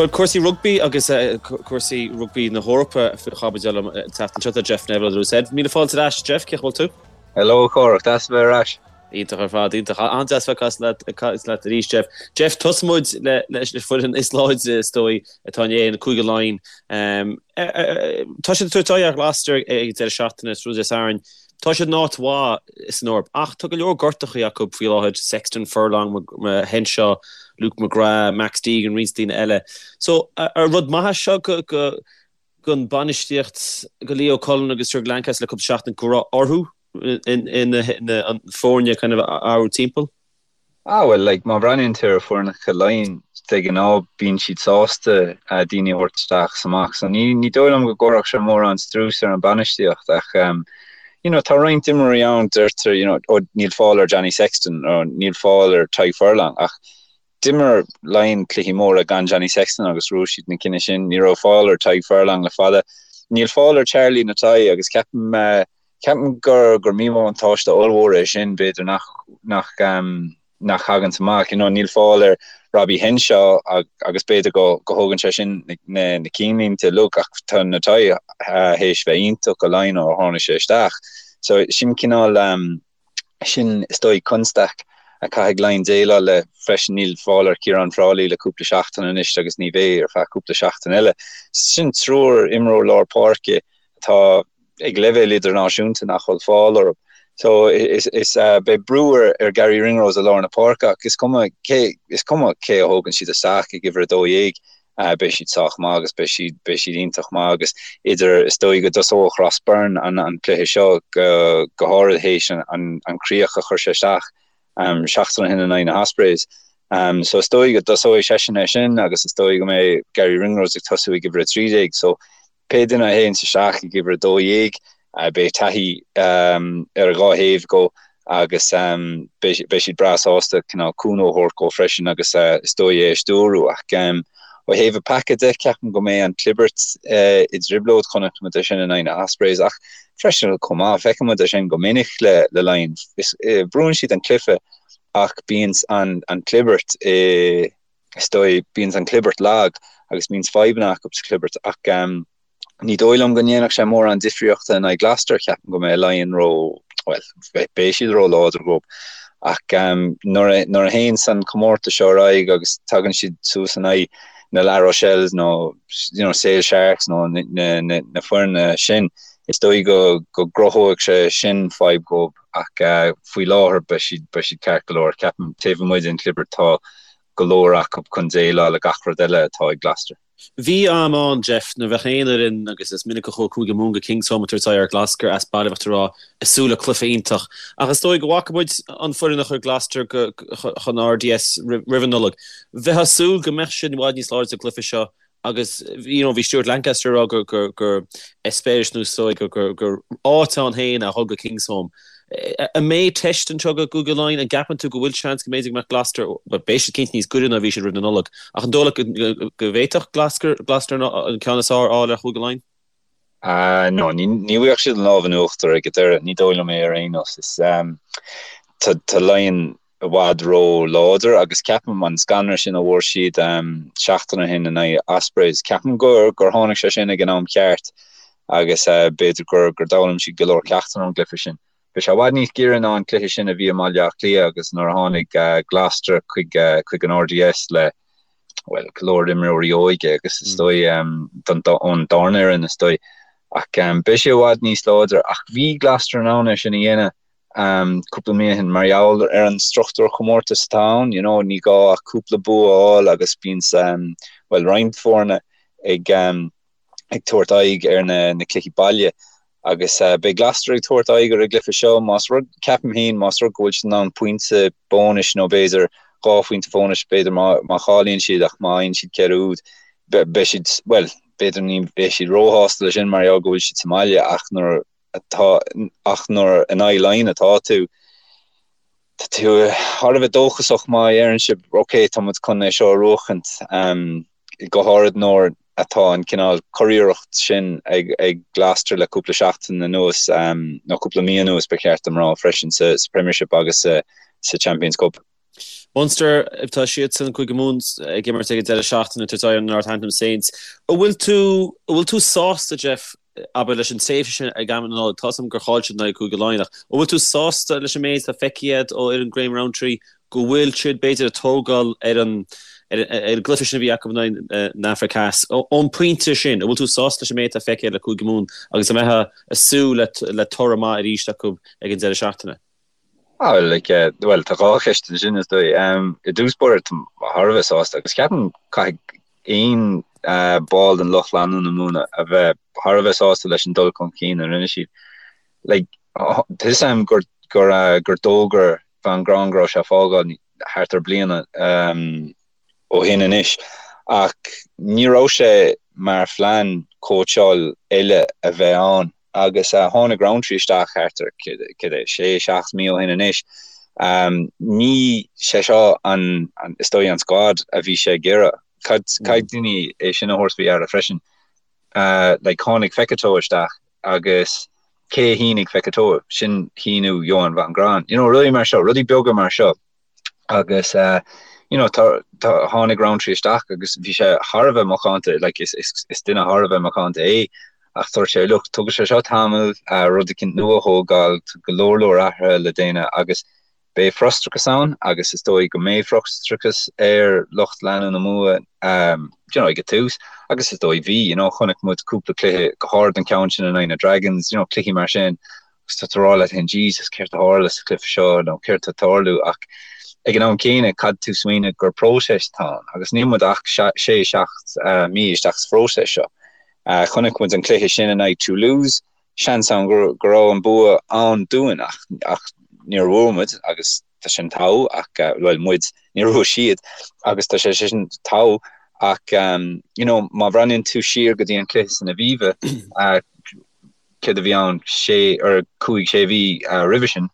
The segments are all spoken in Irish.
Bhuel, cúrsaí rugbaí agus cúrsaí rugbaí na hEorpa faoi chaibidil an tseachtain seo. Tá Jeff Neville ar Ed. Míle fáilte ar ais, Jeff, cén chaoi a bhfuil tú? Hello, a Chárthach, deas a bheith ar ais. Iontach ar fad, iontach. An-deas bheith ag caint leat, ag caint leat arís, Jeff. Jeff, tosóidh muid le, leis an foireann is láidre, is dóigh, atá in Éirinn, Cúige Laighean. Tá siad ag tabhairt aghaidh ar Ghloucester ag an deireadh seachtaine, tráthnóna Dé Sathairn. Tá siad in áit mhaith san Eoraip ach tá go leor gortachaí acu faoi láthair, Sexton, Furlong, Henshaw, Luke McGrath, Max Deegan, roinnt daoine eile. So, ar rud maith é seo go, go, don bainistíocht, go Leo Cullen agus Jurgen Lancaster le cúpla seachtain go raibh orthu an foirne kind of a athrú timpeall? Ah bhuel, like, má bhreathnaíonn tú ar foirneacha Laighean, de ghnáth bíonn siad sásta daoine a thabhairt isteach is amach, so ní, ní dóigh liom go gcuirfeadh sé mórán strús ar an bainistíocht ach ehm, you know, tá roinnt imreoirí ann, deirtear, you know, oh níl fáil ar Johnny Sexton nó níl fáil ar Tadhg Furlong ach d'imir Laighean cluichí móra gan Johnny Sexton agus bhuaigh siad na cinn sin, ní raibh fáil ar Tadhg Furlong le fada, níl fáil ar Charlie Ngatai agus ceapaim eh, Ceapaim gur gur míbhuntáiste ollmhór é sin, b'fhéidir nach nach nach thaganns amach. You know, níl fáil ar Robbie Henshaw agus b'fhéidir go go thógann sé sin na na cinnlínte uilig ach tá Ngatai théis bheith iontach go Laighin ó tháinig sé isteach. So sin cineál sin is dóigh constaic a caithfidh Laighin déileáil le freisin. Níl fáil ar Ciarán Frawley le cúpla seachtain anois agus ní bheidh ar feadh cúpla seachtain eile. Sin triúr imreoir lár páirce atá ag leibhéal idirnáisiúnta nach bhfuil fáil orthu. So is is beidh brú ar ar Garry Ringrose i lár na páirce ach is cuma cé is cuma cé a thógann siad isteach ag uimhir 12 beidh siad sách maith agus beidh siad beidh siad iontach maith agus idir is dóigh go dtosóidh Ross Byrne an an cluiche seo go go háirid théis an an an críoch a chuir sé isteach seachtain ó shin in aghaidh na hOspreys. So is dóigh go dtosóidh seisean é sin agus is dóigh go mbeidh Garry Ringrose ag tosú ag uimhir 13 so Pé duine a théanns isteach ag uimhir 12, beidh taithí ar a dhá thaobh dhó agus beidh siad breá sásta cineál cúnamh a thabhairt dhó freisin agus is dóigh é a stiúrú. Ach ó thaobh an paca de, ceapaim go mbeidh an chlibirt i dtrioblóid. Chonaic muid é sin in aghaidh na Ospreys ach freisin chomh maith, feiceann muid é sin go minic le Laighin. Brúann siad an cluiche ach bíonn an chlibirt i. is dóigh, bíonns an chlibirt lag agus bíonns fadhbanna acu sa chlibirt ach ní dóigh liom go ndéanfadh sé mórán difríochta in aghaidh Gloucester, ceapaim go mbeidh Laighin ró, bhuel, beidh siad ró-láidir dhóibh ach nuair a, nuair a théanns an comórtas seo ar aghaidh agus tagann siad suas in aghaidh na La Rochelles nó you know, Sale Sharks nó na, na, na, na foirne sin, is dóigh go, go gcruthóidh sé sin fadhb dhóibh ach faoi láthair beidh siad, beidh siad ceart go leor. Ceapaim taobh amuigh den chlibirt tá go leor acu chun déileáil le gach rud eile atá ag Gloucester. Bhí am ann, Jeff, nuair a bheadh aon fhoireann, agus is minic a chuaigh Cúige Mumhan go Kingsholm ag tabhairt aghaidh ar Gloucester as baile, bheadh tú ag rá, ag súil le cluiche iontach. Ach is dóigh go bhfaca muid an foireann a chuir Gloucester chun RDS roimh an Nollaig. Bheifeá ag súil go mbeadh siad i bhfad níos láidre sa gcluiche seo Agus you know bhí Stuart Lancaster ag rá gur gur gur eispéireas nó is dóigh gur gur gur áit ann féin a dhul go Kingsholm. An mbeidh teist anseo do Chúige Laighean? An gceapann tú go bhfuil seans go mb'fhéidir go mbeadh Gloucester, bhuel beidh siad cinnte níos gaire ná bhí siad roimh na Nollag, ach an dóigh leat go go bhféadfadh Gloucester Gloucester an ceann is fearr a fháil ar Chúige Laighean? Ah no, ní ní bhfuigheadh siad an lámh in uachtar ag an deireadh, ní dóigh liom é ar aon nós. Is tá tá Laighean i bhfad ró láidir agus ceapaim an scanradh sin a bhfuair siad seachtain ó shin in aghaidh Ospreys, ceapaim gur gur tháinig sé sin ag an am ceart agus b'fhéidir gur gur d'fhoghlaim siad go leor ceachtanna ón gcluiche sin. Bhí sé i bhfad níos giorra ná an cluiche sin a bhí i mBaile Átha Cliath agus nuair a tháinig Gloucester chuig chuig an RDS le bhuel go leor imreoirí óige agus is dóigh don ón darna fhoireann is dóigh ach beidh sé i bhfad níos láidre ach bhí Gloucester in ann é sin a dhéanamh cúpla mí ó shin mar gheall ar an struchtúr chomórtais atá ann, you know, ní gá ach cúpla bua a fháil agus bíonn, bhuel, roinnt foirne ag ag tabhairt aghaidh ar na na cluichí baile agus beidh Gloucester ag tabhairt aghaidh ar an gcluiche seo más rud, ceapaim féin, más rud go bhfuil siad in ann pointe bónais nó b'fhéidir 2 phointe bhónais b'fhéidir má má chailleann siad ach má fhaigheann siad 4 úd beidh siad, bhuel, b'fhéidir ní bheidh siad róshásta leis sin mar gheall go bhfuil siad sa mbaile ach nuair atá, ach nuair in aghaidh Laighean atá tú, tá tú thar a bheith dóchasach má dheireann sibh ok, tá muid chun é seo a bhuachaint, go háirid nuair atá an cineál curiarracht sin ag ag Gloucester le cúpla seachtain anuas, nó cúpla mí anuas ba cheart dom rá freisin, sa Premiership agus sa Champions Cup. Munster, tá siadsan, Cúige Mumhan, ag imirt ag an deireadh seachtaine ag tabhairt aghaidh ar Northampton Saints. An bhfuil tú, an bhfuil tú sásta, Jeff, abair, leis an tréimhse sin ag am na Nollag? Tá 'fhios a'm gur chaill siad in aghaidh Cúige Laighean ach an bhfuil tú sásta leis an méid atá feicthe agat ó fhoireann Graham Rowntree go bhfuil siad, b'fhéidir, ag tógáil ar an ar an gcluiche sin a bhí acu in aghaidh na Afraice Theas? Ón bpointe sin, an bhfuil tú sásta leis an méid atá feicthe le Cúige Mumhan agus an mbeifeá ag súil le toradh maith arís acu ag an deireadh seachtaine? Ah, well, like, eh, well, tá dhá cheist ansin, is dóigh. Um, I dtús báire, táim thar a bheith sásta, agus ceapaim caithfidh aon uh, ball den lucht leanúna Mumhan a bheith thar a bheith sásta leis an dul chun cinn a rinne siad. Like, tá 'fhios a'm gur, gur, uh, gur d'fhógair Van Graan go raibh sé ag fágáil thart ar bliana um, ó shin anois, ach ní raibh sé mar phlean cóitseáil eile a bheith ann. Agus tháinig Rowntree isteach thart ar, cad é, sé, seacht mí ó shin anois. Ní sé seo an, is dóigh, an squad a bhí sé ag iarraidh. Caithfidh daoine é sin a thabhairt faoi deara freisin. Like, tháinig Fekitoa isteach agus cé a shínigh Fekitoa? Sin shíniú Johann van Graan. You know, rudaí mar seo, rudaí beaga mar seo. Agus you know tá tá tháinig Rowntree isteach agus bhí sé thar a bheith macánta like is is is duine thar a bheith macánta é ach dúirt sé look tógfaidh sé seo tamall rud eicínt nua a thógáil tá go leor leor athruithe le déanamh agus beidh frustrachas ann agus is dóigh go mbeidh frustrachas ar lucht leanúna Mumhan um, you know, ag an tús agus is dóigh bhí you know, chonaic muid cúpla cluiche go háirid an ceann sin in aghaidh na Dragons you know, cluichí mar sin agus tá tú ag rá leat féin Jesus céard a tharla sa chluiche seo nó céard atá ag tarlú ach ag an am céanna caithfidh tú smaoineamh gur próiseas atá ann agus níl muid ach sé, seacht mí isteach sa phróiseas seo. Chonaic muid an cluiche sin in aghaidh Toulouse, seans ann go raibh an bua ann dúinn ach ach níor bhuaigh muid agus tá sin togha ach bhuel muid, níor bhuaigh siad agus tá sé sin togha ach you know má bhreathnaíonn tú siar go dtí an cluiche san Aviva céard a bhí ann, sé or cúig, sé mhí roimhe sin.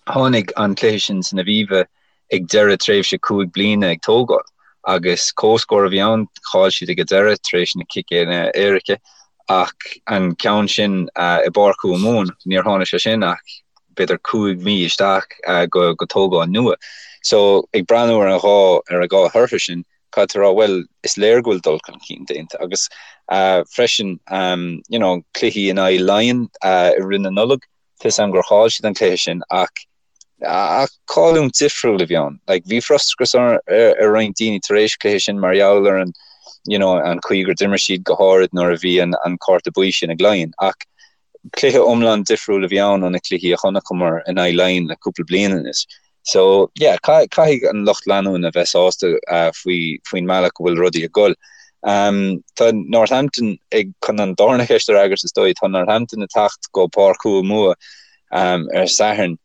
Tháinig an cluiche sin san Aviva ag deireadh tréimhse cúig bliana ag tógáil agus comhscór a bhí ann, chaill siad ag an deireadh tar éis na ciceanna éirice ach an ceann sin i bPáirc Chúige Mumhan, níor tháinig sé sin ach b'fhéidir cúig mhí isteach go tógáil nua. So ag breathnú ar an dhá ar an dhá thortha sin, caithfidh tú rá, bhuel, is léir go bhfuil dul chun cinn déanta agus freisin, you know, cluichí in aghaidh Laighean i rith na Nollag, tá 'fhios a'm gur chaill siad an cluiche sin ach ach cailliúint difriúil a bhí ann. Like, bhí frustrachas ar ar roinnt daoine tar éis cluiche sin mar gheall ar an, you know, an chaoi gur d'imir siad go háirid nuair a bhí an an cárta buí sin ag Laighean ach cluiche iomlán difriúil a bhí ann ó na cluichí a chonaiceamar in aghaidh Laighean le cúpla bliain anois. So, yeah, caithfidh an lucht leanúna bheith sásta faoi faoin mbealach go bhfuil rudaí ag dul. Tá Northampton ag, chun an darna cheist a fhreagairt is dóigh, tá Northampton ag teacht go Páirc Chúige Mumhan ar Satharn.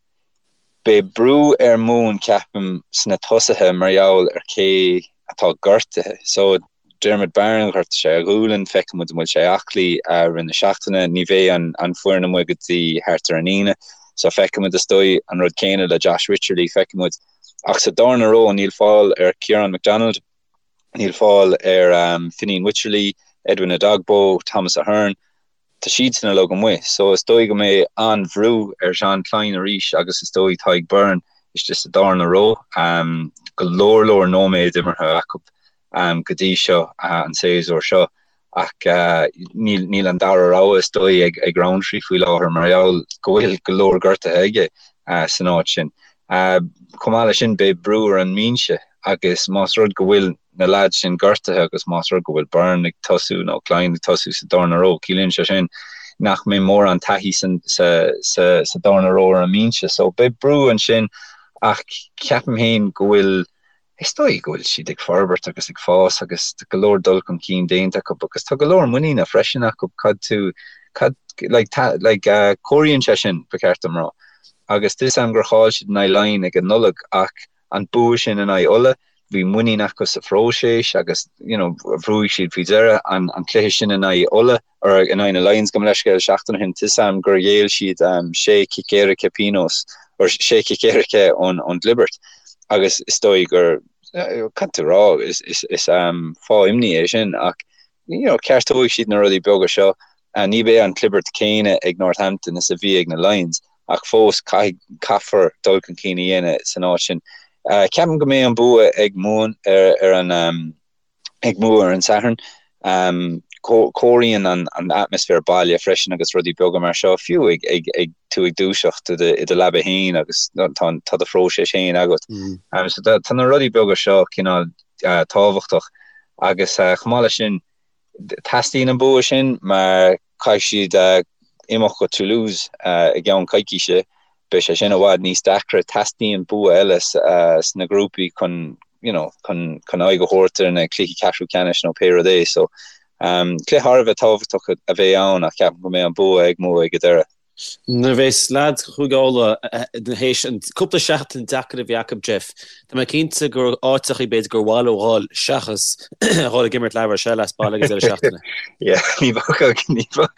Beidh brú ar Mumhain ceapaim sna tosaithe mar gheall ar cé atá gortaithe. So, Diarmuid Barron, ghortaigh sé a ghualainn, feicfidh muid an bhfuil sé aclaí i rith na seachtaine. Ní bheidh an foireann amuigh go dtí thart ar an Aoine, so feicfidh muid is dóigh. An rud céanna le Josh Wycherley, feicfidh muid. Ach sa darna ró níl fáil ar Ciarán McDonald, níl fáil ar Fineen Wycherley, Edwin Edogbo, Thomas Ahern. Tá siadsan uilig amuigh so is dóigh go mbeidh an-bhrú ar Jean Kleyn arís agus is dóigh Tadhg Beirne istigh sa darna ró. Go leor leor nóiméad imeartha acu go dtí seo an séasúr seo ach níl an dara rogha is dóigh ag Rowntree faoi láthair mar gheall go bhfuil go leor gortaithe aige san áit sin. Chomh maith leis sin beidh brú ar an mbinse agus más rud go bhfuil na leaids sin gortaithe agus más rud go bhfuil Beirne ag tosú nó Kleyn ag tosú sa darna ró, ciallaíonn sé sin nach mbeidh mórán taithí sa darna ró ar an mbinse. So beidh brú ansin ach ceapaim féin go bhfuil, is dóigh go bhfuil siad ag forbairt agus ag fás agus tá go leor dul chun cinn déanta acu agus tá go leor muiníne freisin acu cad tú, cad, like, like, comhairíonn sé sin, ba cheart dom rá. Agus tá 'fhios a'm gur chaill siad in aghaidh Laighean ag an Nollaig ach an bua sin in aghaidh Uladh, bhí muinín acu sa phróiseas agus you know bhuaigh siad faoi dheireadh an an cluiche sin in aghaidh Uladh or in aghaidh na Lions gabh mo leithscéal seachtain ó shin tá 'fhios a'm gur ghéill siad um, sé cic éirice pionós or sé cic éirice ón ón gclibirt agus is dóigh gur cad tú rá is is is um, fáth imní é sin ach you know ceartóidh siad na rudaí beaga seo ní bheidh an clibirt céanna ag Northampton is a bhí ag na Lions ach fós caithfidh, caithfear dul chun cinn a dhéanamh san áit sin. Ceapaim go mbeidh an bua ag Mumhain ar an ag Mumha ar an Satharn. Comhairíonn an atmaisféar baile freisin agus rudaí beaga mar seo, fiú ag ag tú ag dúiseacht i do leaba féin agus tá do phróiseas féin agat. So tá na rudaí beaga seo cineál tábhachtach agus chomh maith leis sin, Teastaíonn an bua sin mar caithfidh siad imeacht go Toulouse i gceann coicíse. Beidh sé sin i bhfad níos deacra. Teastaíonn bua eile sna grúpaí chun you know chun chun aghaidh a thabhairt ar na cluichí ceathrú ceannais nó pé rud é. So cluiche thar a bheith tábhachtach a bheidh ann ach ceapaim go mbeidh an bua ag Mumha ag an deireadh. Nuair a bheas leaids Chúige Uladh théis an cúpla seachtain deacair a bhí acu, Jeff, tá mé cinnte gur áiteachaí b'fhéidir gur mhaith leo dhul seachas a dhul ag imirt La Rochelle as baile ag an deireadh seachtaine. Yeah, ní bheadh, ní bheadh,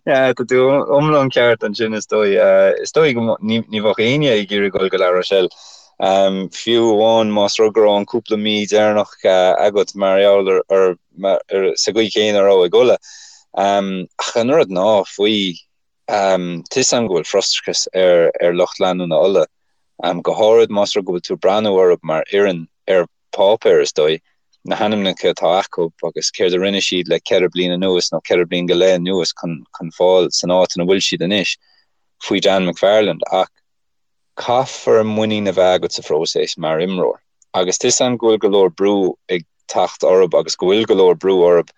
yeah, tá tú iomlán ceart ansin is dóigh. Is dóigh go ní bheadh éinne ag iarraidh dhul go La Rochelle. Fiú amháin más rud go raibh an cúpla mí deireanach agat mar gheall ar, ar, sa gcaoi chéanna a raibh ag Ulaidh. Ach an rud ná faoi Tá 'fhios a'm go bhfuil frustrachas ar lucht leanúna Uladh, go háirid más rud go bhfuil tú ag breathnú orthu mar fhoireann ar páipéar, is dóigh, na hainmneacha atá acu agus céard a rinne siad le ceithre bliana anuas nó ceithre bliana go leith anuas chun fáil san áit ina bhfuil siad anois faoi Dan McFarland. Ach caithfear muinín a bheith agat sa phróiseas mar imreoir agus tá 'fhios a'm go bhfuil go leor brú ag teacht orthu agus go bhfuil go leor brú orthu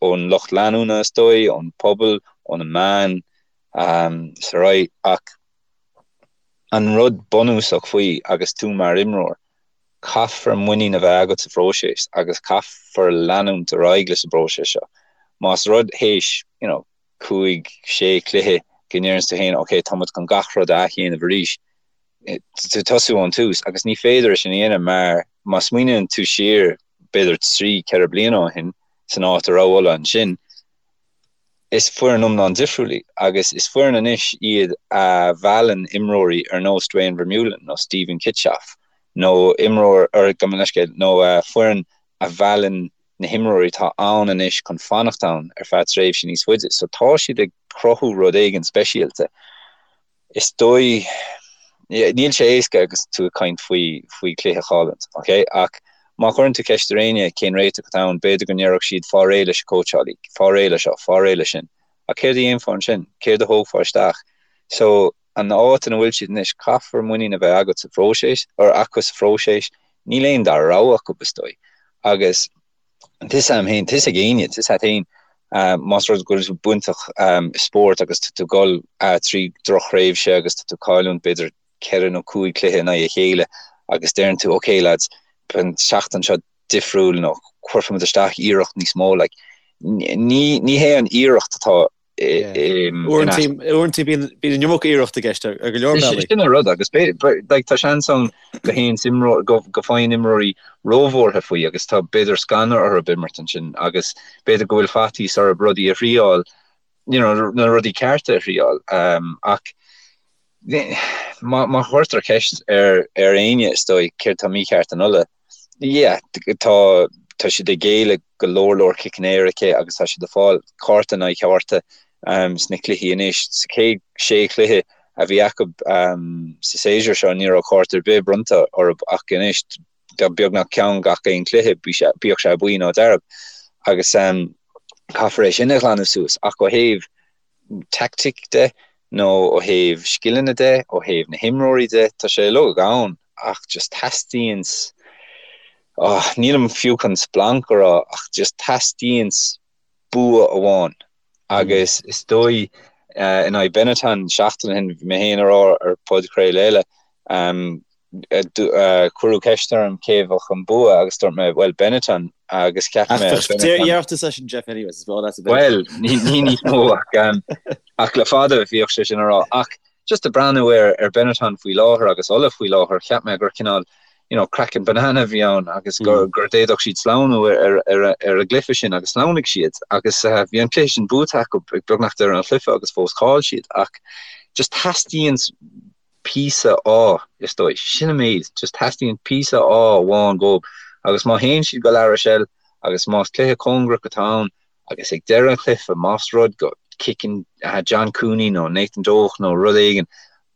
ón lucht leanúna is dóigh, ón pobal, ó na meáin is ar aghaidh ach an rud bunúsach faoi agus tú mar imreoir, caithfear muinín a bheith agat sa phróiseas agus caithfear leanúint ar aghaidh leis an bpróiseas seo. Más rud théis, you know, 5, 6 cluiche go ndeireanns tú féin ok tá muid chun gach rud a athdhéanamh arís, tú tosú ón tús agus ní féidir é sin a dhéanamh mar má smaoiníonn tú siar b'fhéidir 3, 4 bliana ó shin san áit a raibh Ulaidh ansin, is foireann iomlán difriúil í agus is foireann anois iad a mheallann imreoirí ar nós Duane Vermeulen nó Steven Kitshoff nó imreoir, or gabh mo leithscéal, nó foireann a mheallann na himreoirí atá ann anois chun fanacht ann ar feadh tréimhse níos faide. So tá siad ag cruthú rud éigin speisialta. Is dóigh, níl sé éasca agus tú ag caint faoi faoi chluiche a chailliúint, ok? Ach má chuireann tú ceist ar éinne cén réiteach atá ann, b'fhéidir go ndéarfadh siad fáil réidh leis an cóitseálaí, fáil réidh le seo, fáil réidh le sin. Ach céard a dhéanfá ansin? Céard a thógfá isteach? So an áit ina bhfuil siad anois, caithfear muinín a bheith agat sa phróiseas, or acu sa phróiseas, níl aon dara rogha acu, is dóigh. Agus tá 'fhios a'm féin, tá 'fhios ag éinne, tá 'fhios a't féin, más rud go bhfuil tú bainteach i spórt agus tá tú ag dul trí drochthréimhse agus tá tú ag cailliúint b'fhéidir ceithre nó cúig cluiche in aghaidh a chéile agus deireann tú ok lads, beidh an tseachtain seo difriúil nó cuirfimid isteach iarracht níos mó, like, ní ní hé an iarracht atá Uaireanta bíonn an iomarca iarracht i gceist ar go leor bealaí. Sin an rud agus tá seans ann go théann go faigheann imreoirí róbhuartha faoi agus tá b'fhéidir scanradh orthu imirt ansin agus b'fhéidir go bhfuil faitíos orthu rudaí a thriáil, you know, na rudaí cearta a thriáil. Ach má chuirtear ceist ar éinne is dóigh céard tá mícheart in Ulaidh, Yeah, tá tá siad ag géilleadh go leor leor ciceanna éirice agus tá siad ag fáil cárta in aghaidh cárta sna cluichí anois. Sa chéad sé chluiche a bhí acu sa séasúr seo ní raibh cárta ar bith bronnta orthu ach anois tá beagnach ceann gach aon chluiche, bíodh sé buí nó dearg. Agus caithfear é sin a ghlanadh suas ach ó thaobh tactic de nó ó thaobh scileanna de, ó thaobh na himreoirí de, tá sé uilig ann ach just teastaíonn, oh, nílim fiú chun splanc a rá ach just teastaíonn bua amháin agus is dóigh in aghaidh Benetton seachtain ó shin, bhí mé féin a rá ar podchraoladh eile, Cuireadh ceist orm cé a bheadh an bua agus dúirt mé, bhuel, Benetton agus cheap mé Benetton. Dheartha seisean Jeff anyways, is well that's a bit. Bhuel, ní níos mó ach ach le fada bhíodh sé sin a rá. Ach just ag breathnú ar ar Benetton faoi láthair agus Ulaidh faoi láthair, cheap mé gur cineál you know, craiceann banana a bhí ann agus gur gur d'fhéadfadh siad sleamhnú ar ar ar an gcluiche sin agus shleamhnaigh siad agus bhí an cluiche sin buaite acu ag beagnach deireadh an chluiche agus fós chaill siad ach just teastaíonn píosa ádh, is dóigh. Sin an méid. Just teastaíonn píosa ádh amháin dhóibh agus má théann siad go La Rochelle agus más cluiche cóngarach atá ann agus ag deireadh an chluiche más rud go gciceann John Cooney nó Nathan Doak nó rud éigin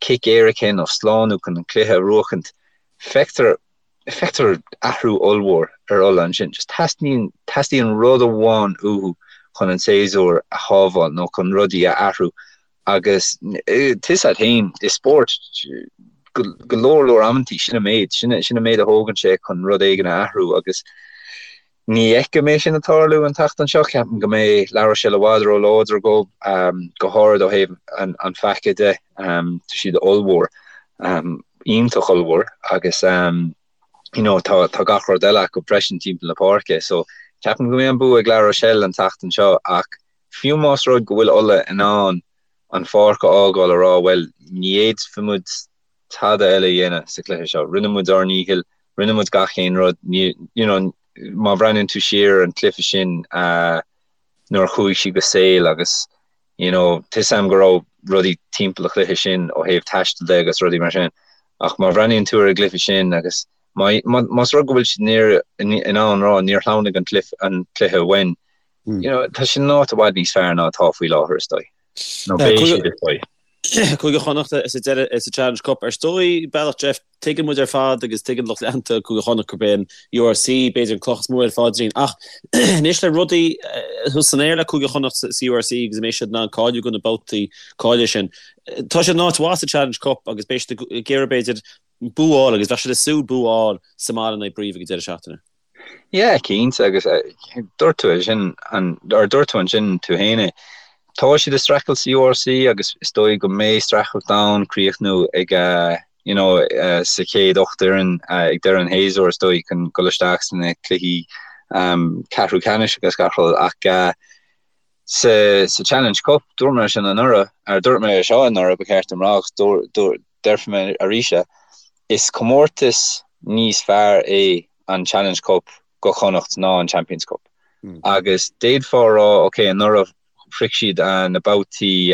cic éirice nó slánú chun an cluiche a bhuachaint. Feictear feictear athrú ollmhór ar Ulaidh ansin. Just teastaíonn teastaíonn rud amháin uathu chun an séasúr a shábháil nó chun rudaí a athrú agus tá a fhios agat féin i spórt go go leor leor amantaí sin an méid sin sin an méid a thógann sé chun rud éigin a athrú agus Ní fheicim é sin ag tarlú an tseachtain seo. Ceapaim go mbeidh La Rochelle i bhfad ró-láidir dóibh, go háirid ó thaobh an phaca de. Tá siad ollmhór, iontach ollmhór agus you know tá tá gach rud eile acu freisin timpeall na páirce. So ceapaim go mbeidh an bua ag La Rochelle an tseachtain seo ach fiú más rud go bhfuil Ulaidh in ann an pháirc a fhágáil a rá bhuel ní fhéadfaidh muid tada eile a dhéanamh sa chluiche seo. Rinne muid ár ndícheall, rinne muid gach aon rud. Ní, you know, má bhreathnaíonn tú siar ar an chluiche sin nuair a chuaigh siad go Sale agus, you know, tá a fhios agam go raibh rudaí timpeall an chluiche sin ó thaobh taistil de agus rudaí mar sin. Ach má bhreathnaíonn tú ar an gcluiche sin agus má, má, más rud go bhfuil siad in, in ann rá níor shleamhnaigh an cluiche, an cluiche uainn, you know, tá siad in áit i bhfad níos fearr ná atá faoi láthair is dóigh. Nó beidh siad is dóigh. Cúige Chonnacht sa deireadh sa Challenge Cup. Ar ndóigh, bealach Jeff, tuigeann muid ar fad agus tuigeann lucht leanta Cúige Chonnacht gurb é an URC b'fhéidir an cloch is mó ar a phaidrín. Ach anois le rudaí thuas san aer le Cúige Chonnacht sa URC agus an mbeidh siad in ann cáiliú do na babhtaí cáilithe sin. Tá siad in áit mhaith sa Challenge Cup agus beidh siad ag iarraidh b'fhéidir bua a fháil agus bheadh siad ag súil bua a fháil sa mbaile in aghaidh Brive ag an deireadh seachtaine. Yeah, cinnte, agus dúirt tú é sin, or dúirt tú ansin tú féin é. Tá siad ag streachailt sa URC agus is dóigh go mbeidh streachailt ann críochnú ag, you know, sa chéad 8 fhoireann ag deireadh an shéasúir is dóigh chun dul isteach sna cluichí ceathrú ceannais agus gach rud ach sa sa Challenge Cup dúirt mé sin anuraidh, or dúirt mé seo anuraidh ba cheart dom rá agus déarfaidh mé arís é, is comórtas níos fearr é an Challenge Cup go Chonnacht ná an Champions Cup. Agus d'fhéadfá a rá, ok, anuraidh shroich siad na babhtaí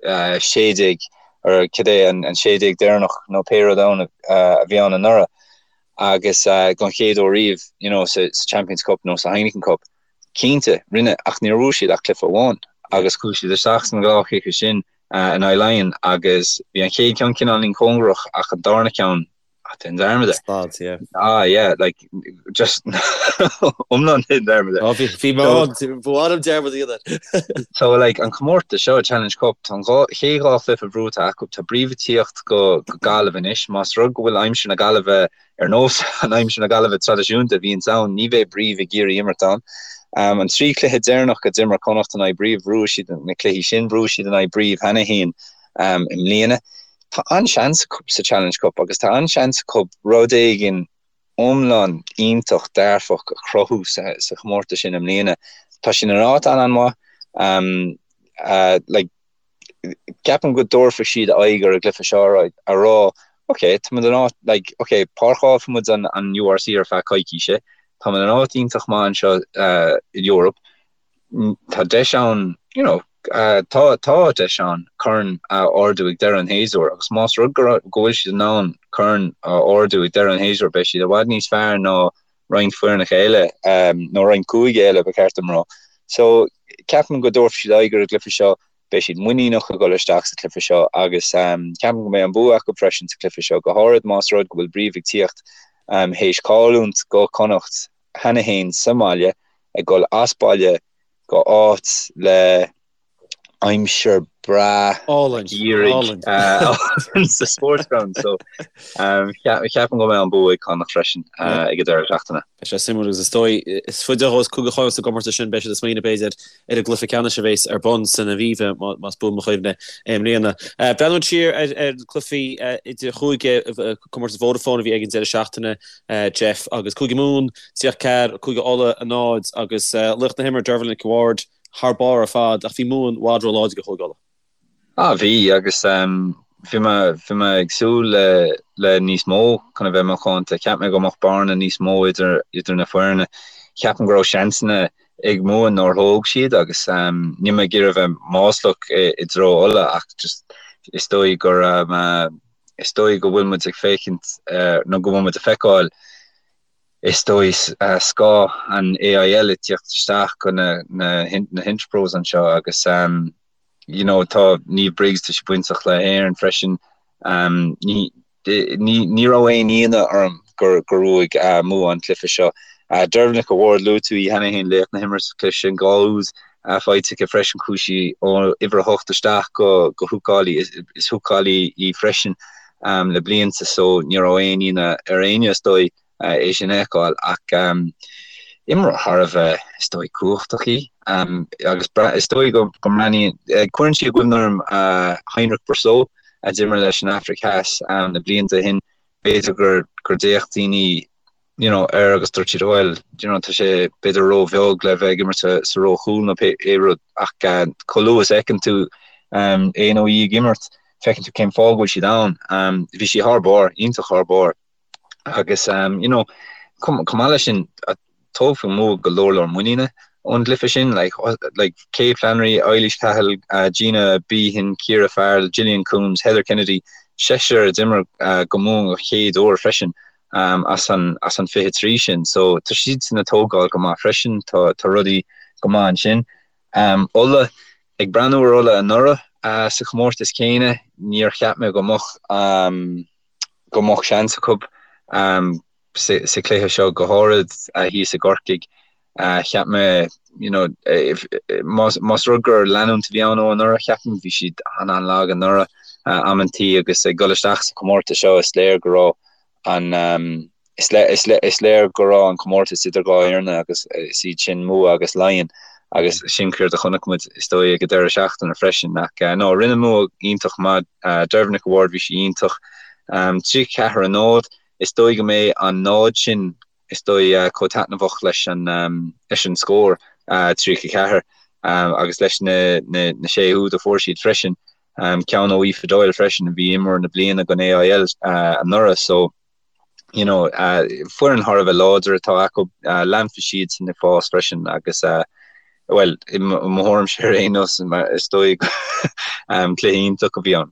16 or cad é an 16 deireanach nó pé rud ann a bhí ann anuraidh agus don chéad uair riamh you know, sa Champions Cup nó sa Heineken Cup. Cinnte, rinne, ach níor bhuaigh siad ach cluiche amháin agus chuaigh siad isteach sna dhá chluiche sin in aghaidh Laighean agus bhí an chéad ceann cineáilín cóngarach ach an darna ceann, ah, déan dearmad air. Slad, yeah. Ah, yeah, like, just iomlán déan dearmad air. Oh, bhí, bhí mé ann, ba mhaith liom dearmad a dhéanamh air. So, like, an comórtas seo, Challenge Cup, tá an dhá, chéad dhá chluiche buaite acu, tá Brive ag tíocht go, go Gaillimh anois, más rud go bhfuil aimsir na Gaillimhe ar nós an aimsir na Gaillimhe traidisiúnta a bhíonns ann, ní bheidh Brive ag iarraidh imirt ann. An 3 chluiche deireanach a d'imir Connacht in aghaidh Brive, bhuaigh siad na cluichí sin, bhuaigh siad in aghaidh Brive cheana féin i mbliana. Tá an-seans acu sa Challenge Cup agus tá an-seans acu rud éigin iomlán iontach dearfach a chruthú sa chomórtas sin i mbliana. Tá siad in áit an-an-mhaith. Like, ceapaim go dtabharfaidh siad aghaidh ar an gcluiche seo a rá ok tá muid in áit like ok páirceálfaidh muid an an URC ar feadh coicíse tá muid in áit iontach maith anseo uh, in Europe tá deis ann you know uh, tá tá deis ann corn a ardú ag deireadh an shéasúir agus más rud go go bhfuil siad in ann corn a ardú ag deireadh an shéasúir beidh siad i bhfad níos fearr ná roinnt foirneacha eile, nó roinnt cúige eile ba cheart dom rá. So, ceapaim go dtabharfaidh siad aghaidh ar an gcluiche seo, beidh siad muiníneach ag dul isteach sa chluiche seo agus ceapaim go mbeidh an bua acu freisin sa chluiche seo, go háirid más rud go bhfuil Brive ag tíocht théis cailliúint go Connacht cheana féin sa mbaile, ag dul as baile go áit le aimsir breá geimhridh sa Sportsground so ceapaim go mbeidh an bua ag Connacht freisin ag an deireadh seachtaine. Beidh sé suimiúil agus is dóigh is faide a ghabhfas Cúige Chonnacht sa gcomórtas sin beidh siad ag smaoineamh b'fhéidir ar an gcluiche ceannais a bheas ar bun san Aviva más buan mo chuimhne i mbliana. Breathnú siar ar ar cluichí idir chúige comórtas Vodafone a bhí ag an deireadh seachtaine Jeff agus Cúige Mumhan 34 Cúige Uladh 0 agus laoch na himeartha Dervla Nic Ward thar barr ar fad ach bhí Mumhain i bhfad róláidir do Chúige Uladh. Ah bhí agus bhí mé bhí mé ag súil le le níos mó chun a bheith macánta. Cheap mé go mbeadh bearna níos mó idir idir na foirne. Ceapaim go raibh seansanna ag Mumhain nár thóg siad agus níl mé ag iarraidh a bheith maslach i i dtreo Uladh ach just is dóigh gur is dóigh go bhfuil muid ag féachaint nó go bhfuil muid ag feiceáil Is dóigh scáth an AIL ag tíocht isteach go na na hInterpros anseo agus you know tá Niamh Briggs tá sí bainteach le hÉirinn freisin. Ní. Ní raibh aon ionadh orm gur bhuaigh Mumha an cluiche seo. Deirbhile Nic a' Bhaird, luaigh tú í cheana féin, laoch na himeartha sa chluiche sin, 2 úd faighte aici freisin, chuaigh sí ó uimhir a hocht isteach go húcálaí, is húcálaí í freisin le blianta so ní raibh aon ionadh ar éinne is dóigh. é sin a fheiceáil ach imreoir thar a bheith, is dóigh, cumhachtach í agus is dóigh go mbreathnaíonn, cuireann sí i gcuimhne orm Heinrich Brüssow a d'imir leis an Afraic Theas na blianta ó shin, b'fhéidir gur gur d'fhéach daoine you know air agus dúirt siad bhuel you know tá sé b'fhéidir róbheag le bheith ag imirt sa ró chúl nó pé rud ach chomh luath is a fheiceann tú é nó í ag imirt feiceann tú cén fáth go bhfuil siad ann. Bhí sí thar barr, iontach thar barr. Agus you know chomh maith leis sin tógfaidh Mumha go leor leor muiníne ón gcluiche sin like like Kate Flannery, Eilís Cahill, Gina Behan, Ciara Farrell, Gillian Coombes, Heather Kennedy, seisear a d'imir do Mumha an chéad uair freisin as an as an 23 sin. So tá siadsan ag tógáil go maith freisin, tá tá rudaí go maith ansin. Ulaidh, ag breathnú ar Ulaidh anuraidh sa chomórtas céanna, níor cheap mé go mbeadh go mbeadh seans acu sa chluiche seo, go háirid thíos i gCorcaigh. Cheap mé, you know, más rud gur leanúint a bhí ann ó anuraidh, ceapaim, bhí siad an-an-lag anuraidh amantaí agus ag dul isteach sa chomórtas seo is léir go raibh an Is léir go raibh an comórtas idir dhá fhoireann agus is iad sin Mumha agus Laighin agus sin céard a chonaic muid is dóigh ag an deireadh seachtaine freisin. Ach no, rinne Mumha iontach maith. Deirbhile Nic a' Bhaird, bhí sí iontach. 34 a 0, is dóigh go mbeidh an náid sin is dóigh chomh taitneamhach leis an leis an scór 34 agus leis na na sé úd a fuair siad freisin. Ceann ó Aoife Doyle freisin a bhí imreoir na bliana don AIL anuraidh so you know, foireann thar a bheith láidir atá acu, leanfaidh siadsan ag fás freisin agus bhuel, i mo thuairimse ar aon nós, is dóigh cluiche iontach a bhí ann.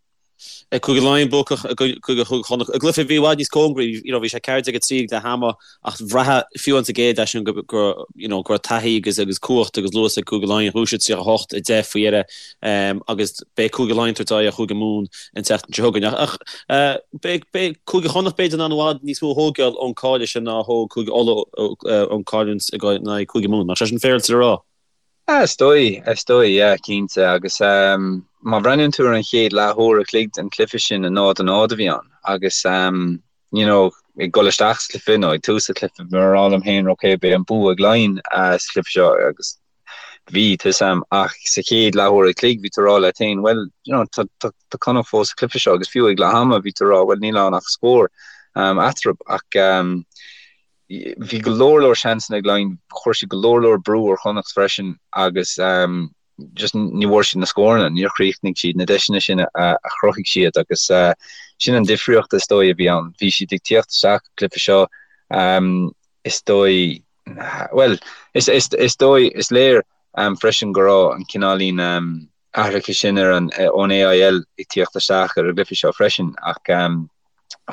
Cúige Laighean buacach i gcoinne Chúige Chonnacht i gcluiche a bhí i bhfad níos cóngaraí, you know, bhí sé 14-3 ag leath ama ach bhraitheadh fiú an sa gcéad leath sin go you know, go raibh taithí agus agus cumhacht agus luas ag Cúige Laighean, bhuaigh siad 38-10 faoi dheireadh agus beidh Cúige Laighean ag tabhairt aghaidh ar Chúige Mumhan an tseachtain seo chugainn. Ach beidh Cúige Chonnacht b'fhéidir in ann i bhfad níos mó a thógáil ón cailleadh sin ná a thóg Cúige Uladh ón cailliúint in aghaidh Cúige Mumhan. Nach sé sin féaráilte le rá? Is dóigh, is dóigh, yeah, cinnte. Agus má bhreathnaíonn tú ar an chéad leathuair a chloig den chluiche sin, 0-0 a bhí ann. Agus you know, ag dul isteach sa chluiche nó ag tús an chluiche, bhí mé ag rá liom féin, ok, beidh an bua ag Laighin sa chluiche seo agus bhí, tá 'fhios a'm, ach sa chéad leathuair a chloig bhí tú ag rá leat féin, bhuel, you know, tá, tá, tá Connacht fós sa chluiche seo agus fiú ag leath ama bhí tú ag rá, bhuel, níl ann ach scór um, eatarthu ach um, bhí go leor leor seansanna ag Laighin, chuir siad go leor leor brú ar Chonnacht freisin agus um, just ní bhfuair siad na scóranna, níor chríochnaigh siad na deiseanna sin a, a chruthaigh siad agus uh, sin an difríocht is dóigh a bhí ann. Bhí siad ag tíocht isteach sa chluiche seo um, is dóigh Bhuel, is dóigh, is léir freisin go raibh an cineáilín athraithe sin ar an ón AIL ag tíocht isteach ar an gcluiche seo freisin ach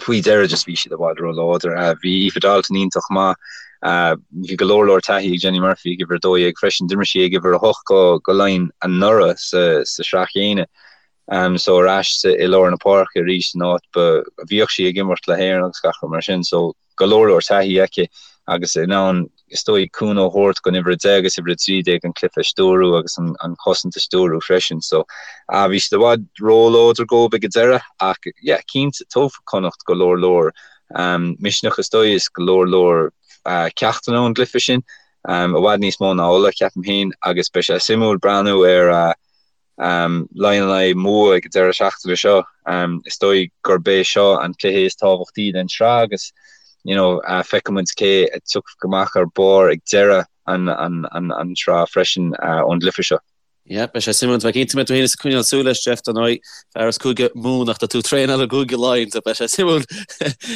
faoi dheireadh just bhí siad i bhfad ró-láidir. Bhí Aoife Dalton iontach maith. Bhí go leor leor taithí ag Jenny Murphy ag uimhir 12 freisin. D'imir sí ag uimhir 8 go Laighin anuraidh sa sraith chéanna. So ar ais i lár na páirce arís san áit ba bhíodh sí ag imirt le hÉirinn agus gach rud mar sin. So go leor leor taithí aici agus in ann, is dóigh, cúnamh a thabhairt don uimhir 10 agus uimhir 13 an cluiche a stiúrú agus an chosaint a stiúrú freisin. So, bhí siad i bhfad róláidir dóibh ag an deireadh ach, yeah, cinnte, tógfaidh Connacht go leor leor misneach, is dóigh, is go leor leor ceachtanna ón gcluiche sin, i bhfad níos mó ná Ulaidh, ceapaim féin, agus beidh sé suimiúil breathnú ar Laighin in aghaidh Mumha ag an deireadh seachtaine seo. Is dóigh gurb é seo an cluiche is tábhachtaí den tsraith agus you know feicfidh muid cé a tiocfaidh amach ar barr ag deireadh an an tsraith freisin ón gcluiche seo. Yeah, beidh sé suimiúil. Tá mé cinnte go mbeidh tú féin ag coinneáil súil leis, Jeff, dar ndóigh, fear as Cúige Mumhan ach tá tú ag traenáil i gCúige Laighean, so beidh sé suimiúil.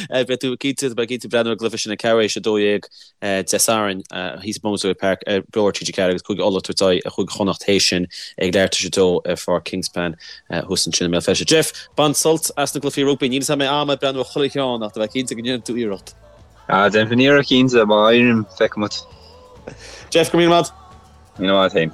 Beidh tú cinnte, beidh cinnte breathnú ar an gcluiche sin ag ceathrú théis 12 Dé Sathairn thíos i Boswell Park ar Beo ar TG4 agus Cúige Uladh ag tabhairt aghaidh ar Chúige Chonnacht théis sin ag leathuair tar éis a dó ar Pháirc Kingspan thuas ansin i mBéal Feirste. Jeff, bain sult as na gcluichí rugbaí. Níl 'fhios a'm an mbeidh am a'd breathnú ar chuile cheann ach tá mé cinnte go ndéanfaidh tú iarracht. Ah, déanfaidh iarracht cinnte, má éirím, feicfidh muid. Jeff, go raibh míle maith. Míle maith féin.